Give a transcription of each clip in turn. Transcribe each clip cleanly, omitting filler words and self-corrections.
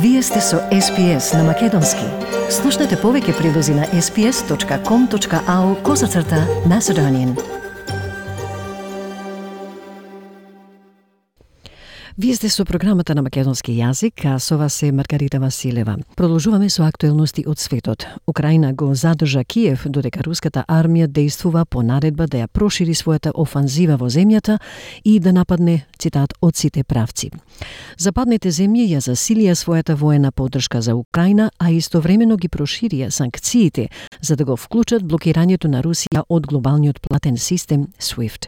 Вие сте со SPS на Македонски. Слушнете повеќе прилози на sps.com.au/Macedonian. Вие сте со програмата на македонски јазик, а со вас е Маргарита Василева. Продолжуваме со актуелности од светот. Украина го задржа Киев, додека руската армија действува по наредба да ја прошири својата офанзива во земјата и да нападне, цитат, од сите правци. Западните земји ја засилија својата воена поддршка за Украина, а истовремено ги проширија санкциите за да го вклучат блокирањето на Русија од глобалниот платен систем SWIFT.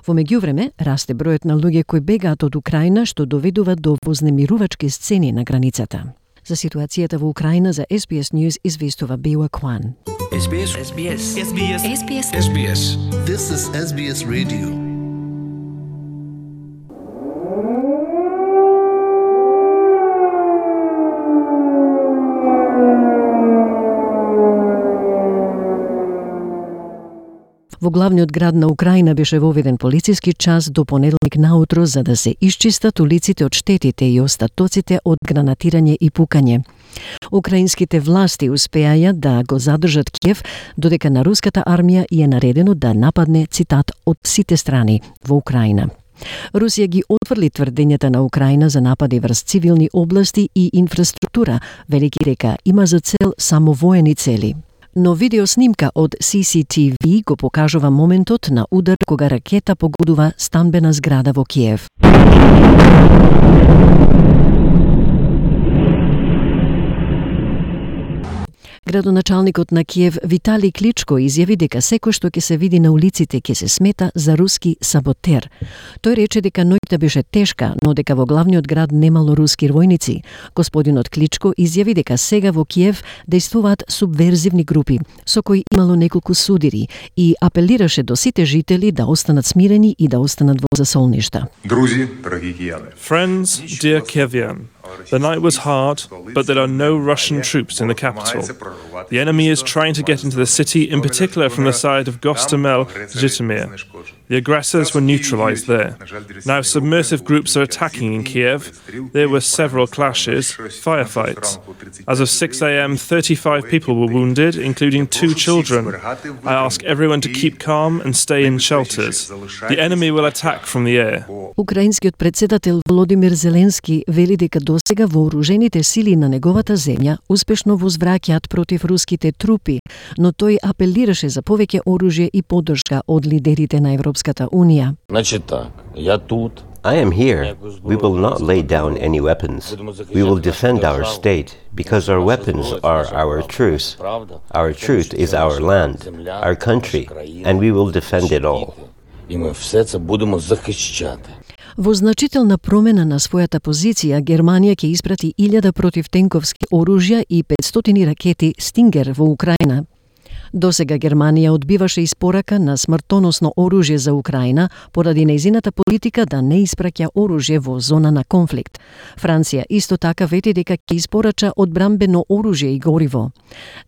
Во меѓувреме, расте бројот на луѓе кои бегаат од Украина, што доведува до вознемирувачки сцени на границата. За ситуацијата во Украина за SBS News известува Беуа Кван. SBS. This is SBS Radio. Во главниот град на Украина беше воведен полициски час до понеделник наутро за да се исчистат улиците од штетите и остатоците од гранатирање и пукање. Украинските власти успеаја да го задржат Киев, додека на руската армија е наредено да нападне, цитат, од сите страни во Украина. Русија ги отврли тврдењата на Украина за напади врз цивилни области и инфраструктура, велики дека има за цел само воени цели. Но видеоснимка од CCTV го покажува моментот на удар кога ракета погодува станбена зграда во Киев. Градоначалникот на Киев Витали Кличко изјави дека секој што ќе се види на улиците ќе се смета за руски саботер. Тој рече дека ноќта беше тешка, но дека во главниот град немало руски војници. Господинот Кличко изјави дека сега во Киев действуваат субверзивни групи, со кои имало неколку судири и апелираше до сите жители да останат смирени и да останат во засолништа. Друзи, драги кијани. Friends, dear Kievan, the night was hard, but there are no Russian troops in the capital. The enemy is trying to get into the city, in particular from the side of Gostomel, Zhytomyr. The aggressors were neutralized there. Now submersive groups are attacking in Kiev. There were several clashes, firefights. As of 6 a.m., 35 people were wounded, including 2 children. I ask everyone to keep calm and stay in shelters. The enemy will attack from the air. Украинскиот претседател Володимир Зеленски вели дека досега вооружените сили на неговата земја успешно возвраќаат против руските трупи, но тој апелираше за повеќе оружје и поддршка од лидерите на Европската Унија. Значит так, я тут. I am here. We will not lay down any weapons. We will defend our state because our weapons are our truth. Our truth is our land, our country, and we will defend it all. И мы все це будемо захищати. Во значителна промена на својата позиција, Германија ќе испрати 1000 противтенковски оружја и 500 ракети Стингер во Украина. Досега Германија одбиваше испорака на смртоносно оружје за Украина поради нејзината политика да не испраќа оружје во зона на конфликт. Франција исто така вети дека ќе испорача одбранбено оружје и гориво.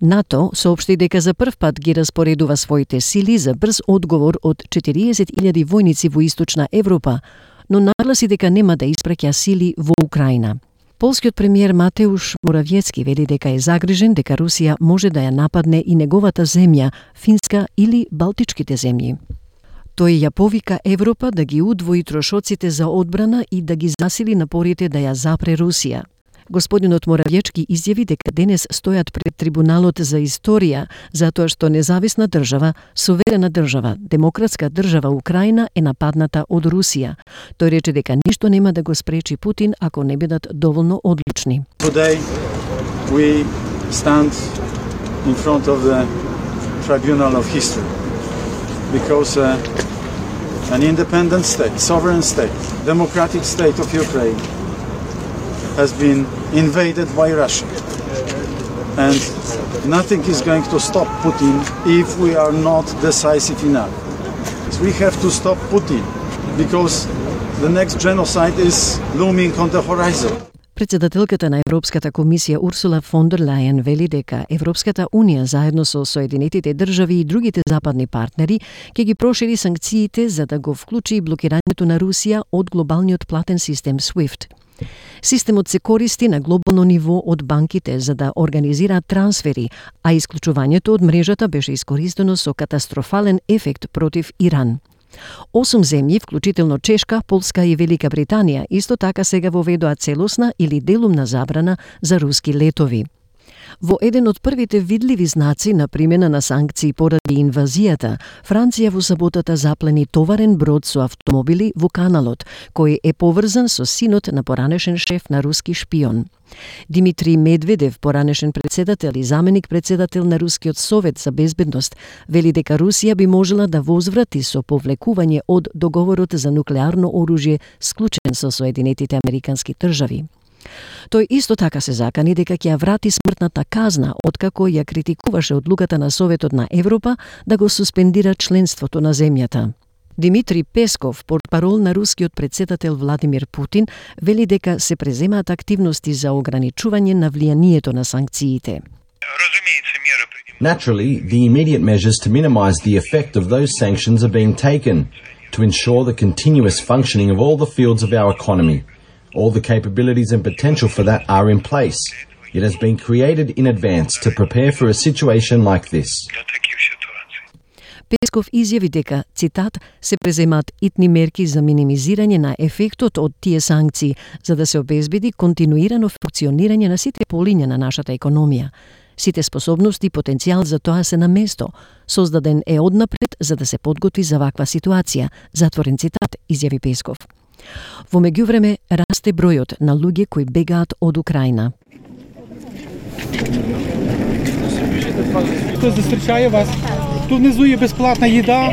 НАТО соопшти дека за прв пат ги распоредува своите сили за брз одговор од 40.000 војници во Источна Европа, но нагласи дека нема да испраќа сили во Украина. Полскиот премиер Матеуш Моравјецки вели дека е загрижен дека Русија може да ја нападне и неговата земја, Финска или Балтичките земји. Тој ја повика Европа да ги удвои трошоците за одбрана и да ги засили напорите да ја запре Русија. Господинот Моравјечки изјави дека денес стојат пред трибуналот за историја, затоа што независна држава, суверена држава, демократска држава Украина е нападната од Русија. Тој рече дека ништо нема да го спречи Путин ако не бидат доволно одлучни. Today we stand in front of the tribunal of history because an independent state, sovereign state, democratic state of Ukraine has been invaded by Russia. And nothing is going to stop Putin if we are not decisive enough. So we have to stop Putin because the next genocide is looming on the horizon. Председателката на Европската комисија Урсула фон дер Лајен вели дека Европската унија заедно со Соединетите држави и другите западни партнери ќе ги прошири санкциите за да го вклучи блокирањето на Русија од глобалниот платен систем SWIFT. Системот се користи на глобално ниво од банките за да организираат трансфери, а исклучувањето од мрежата беше искористено со катастрофален ефект против Иран. 8 земји, вклучително Чешка, Полска и Велика Британија, исто така сега воведоа целосна или делумна забрана за руски летови. Во еден од првите видливи знаци на примена на санкции поради инвазијата, Франција во саботата заплени товарен брод со автомобили во каналот, кој е поврзан со синот на поранешен шеф на руски шпион. Димитри Медведев, поранешен председател и заменик председател на Рускиот совет за безбедност, вели дека Русија би можела да возврати со повлекување од договорот за нуклеарно оружје склучен со Соединетите Американски држави. Тој исто така се закани дека ќе ја врати смртната казна, откако ја критикуваше одлуката на Советот на Европа да го суспендира членството на земјата. Димитри Песков, портпарол на рускиот председател Владимир Путин, вели дека се преземаат активности за ограничување на влијанието на санкциите. Naturally, the immediate measures to minimize the effect of those sanctions are being taken to ensure the continuous functioning of all the fields of our economy. All the capabilities and potential for that are in place. It has been created in advance to prepare for a situation like this. Песков изјави дека, цитат, се преземаат итни мерки за минимизирање на ефектот од тие санкции, за да се обезбеди континуирано функционирање на сите полиња на нашата економија. Сите способности и потенцијал за тоа се на место. Создаден е однапред за да се подготви за ваква ситуација, затворен цитат, изјави Песков. Во меѓувреме расте бројот на луѓе кои бегаат од Украина. Тој застречае вас. Ту внизу е бесплатна једа.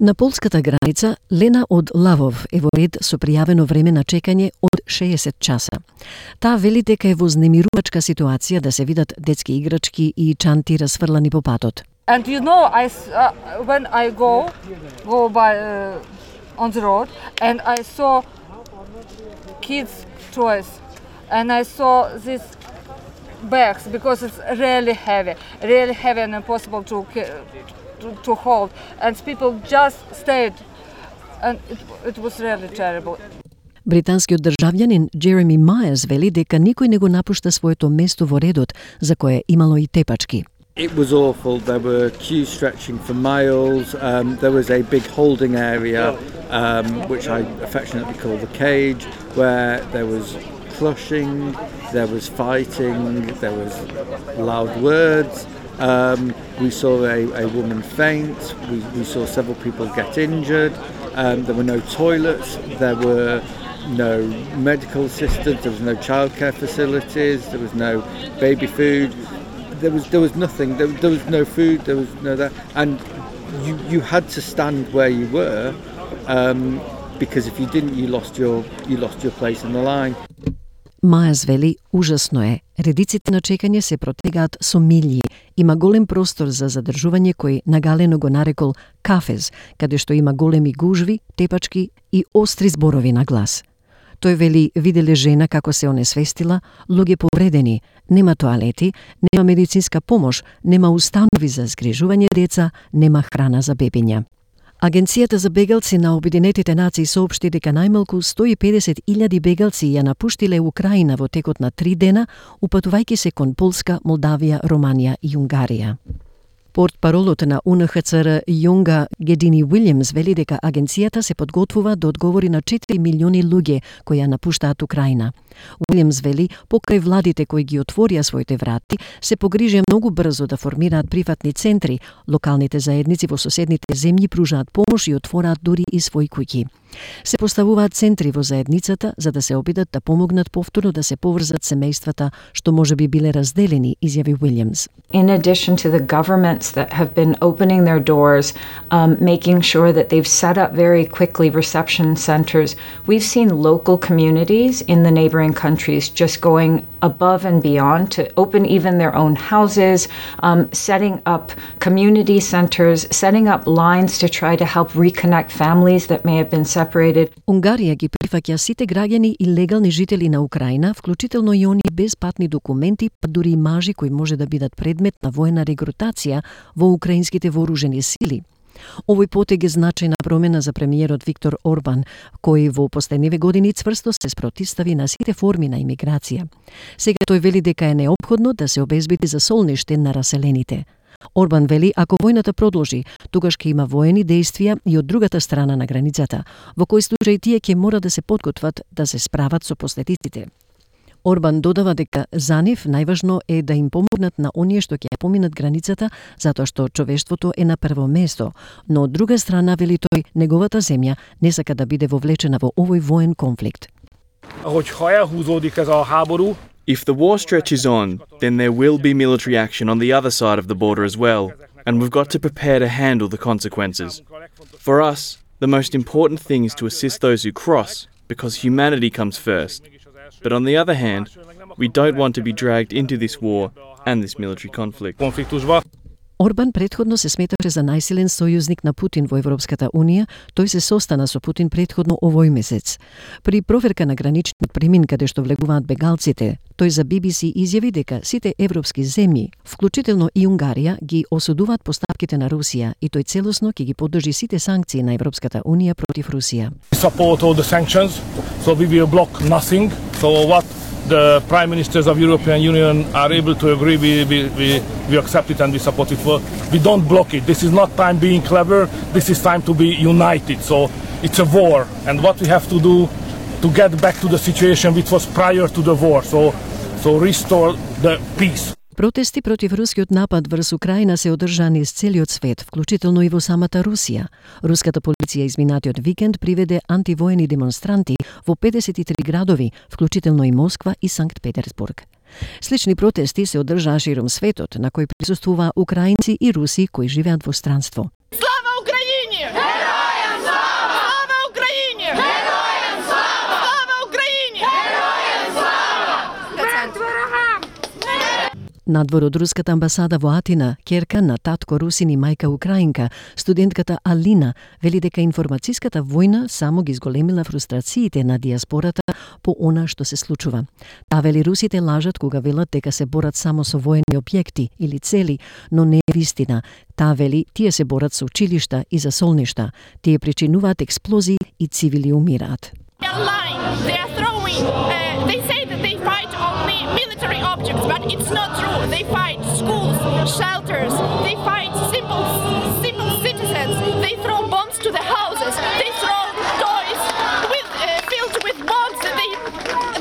На полската граница Лена од Лавов е во ред со пријавено време на чекање од 60 часа. Таа вели дека е во знемирувачка ситуација да се видат детски играчки и чанти расфрлани по патот. And you know, when I go by on the road, and I saw kids' toys, and I saw these bags because it's really heavy and impossible to hold, and people just stayed, and it was really terrible. Британскиот државјанин Джереми Мајерс вели дека никој не го напушта своето место во редот, за кое имало и тепачки. It was awful. There were queues stretching for miles. There was a big holding area, which I affectionately call the cage, where there was crushing, there was fighting, there was loud words. We saw a woman faint. We saw several people get injured. There were no toilets. There were no medical assistance. There was no childcare facilities. There was no baby food. There was nothing. There was no food. There was no that, and you had to stand where you were, because if you didn't, you lost your place in the line. Мајас вели, ужасно е. Редиците на чекање се протегаат со милји. Има голем простор за задржување кој нагалено го нарекол кафез, каде што има големи гужви, тепачки и остри зборови на глас. Тој вели, виделе жена како се онесвестила, луѓе повредени, нема тоалети, нема медицинска помош, нема установи за згрижување деца, нема храна за бебиња. Агенцијата за бегалци на Обединетите нации соопшти дека најмалку 150.000 бегалци ја напуштиле Украина во текот на 3 дена, упатувајќи се кон Полска, Молдавија, Романија и Унгарија. Портпаролот на УНХЦР Јунга Гедини Уилјамс вели дека агенцијата се подготвува да одговори на 4 милиони луѓе кои ја напуштаат Украина. Уилјамс вели, покрај владите кои ги отворија своите врати, се погрижија многу брзо да формираат прифатни центри, локалните заедници во соседните земји пружаат помош и отвораат дури и своји куќи. Се поставуваат центри во заедницата за да се обидат да помогнат повторно да се поврзат семејствата што можеби биле разделени, изјави Уилјамс. In addition to the governments that have been opening their doors, making sure that they've set up very quickly reception centers, we've seen local communities in the neighboring countries just going above and beyond to open even their own houses, setting up community centers, setting up lines to try to help reconnect families that may have been separated. Унгарија ги прифаќа сите граѓани и легални жители на Украина, вклучително и они без патни документи, па дури и мажи кои може да бидат предмет на воена регрутација во украинските вооружени сили. Овој потег е значајна промена за премиерот Виктор Орбан, кој во последниве години цврсто се спротивстави на сите форми на имиграција. Сега тој вели дека е неопходно да се обезбеди за солниште на раселените. Орбан вели, ако војната продолжи, тогаш ќе има воени действија и од другата страна на границата, во кој случај тие ќе мора да се подготват да се справат со последиците. Орбан додава дека за нив најважно е да им помогнат на оние што ќе поминат границата, затоа што човештвото е на прво место, но од друга страна, вели тој, неговата земја не сака да биде вовлечена во овој воен конфликт. If the war stretches on, then there will be military action on the other side of the border as well, and we've got to prepare to handle the consequences. For us, the most important thing is to assist those who cross, because humanity comes first. But on the other hand, we don't want to be dragged into this war and this military conflict. Орбан претходно се сметаше за најсилен сојузник на Путин во Европската Унија, тој се состана со Путин претходно овој месец. При проверка на граничниот премин каде што влегуваат бегалците, тој за BBC изјави дека сите европски земји, вклучително и Унгарија, ги осудуваат постапките на Русија и тој целосно ќе ги поддржи сите санкции на Европската Унија против Русија. Support all the sanctions, so we will block nothing. So what the prime ministers of European Union are able to agree, we accept it and we support it. We don't block it. This is not time being clever. This is time to be united. So it's a war, and what we have to do to get back to the situation which was prior to the war. So restore the peace. Протести против рускиот напад врз Украина се одржани из целиот свет, вклучително и во самата Русија. Руската полиција изминатиот викенд приведе антивоени демонстранти во 53 градови, вклучително и Москва и Санкт Петерсбург. Слични протести се одржаа широм светот, на кои присуствуваа украинци и руси кои живеат во странство. Слава Украине! Геројам слава! Слава Украине! Геројам слава! Слава Украине! Геројам слава! Надвор од руската амбасада во Атина, ќерка на татко русин и мајка украинка, студентката Алина вели дека информацијската војна само ги зголемила фрустрациите на диаспората по она што се случува. Таа вели русите лажат кога велат дека се борат само со воени објекти или цели, но не е вистина. Таа вели тие се борат со училишта и за солништа. Тие причинуваат експлозии и цивили умираат. They say that they fight only military objects, but it's not true. They fight schools, shelters, they fight simple citizens. They throw bombs to the houses. They throw toys filled with bombs.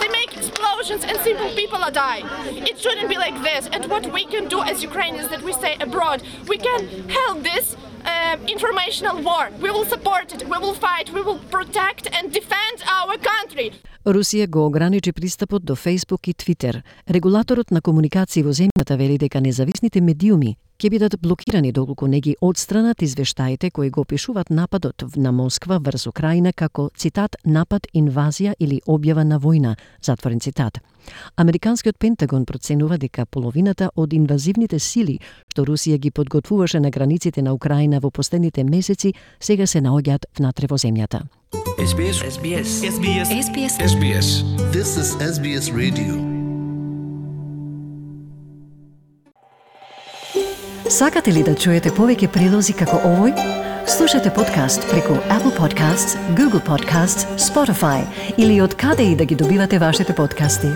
They make explosions and simple people are dying. It shouldn't be like this. And what we can do as Ukrainians that we stay abroad, we can help this informational war. We will support it. We will fight. We will protect and defend our country. Русија го ограничи пристапот до Facebook и Twitter. Регулаторот на комуникации во земјата вели дека независните медиуми ќе бидат блокирани доколку не ги одстранат извештаите кои го опишуваат нападот на Москва врз Украина како, цитат, напад, инвазија или објава на војна, затворен цитат. Американскиот Пентагон проценува дека половината од инвазивните сили што Русија ги подготвуваше на границите на Украина во последните месеци сега се наоѓаат внатре во земјата. SBS. This is SBS Radio. Сакате ли да чуете повеќе прилози како овој? Слушате подкаст преку Apple Podcasts, Google Podcasts, Spotify или од каде и да ги добивате вашите подкасти.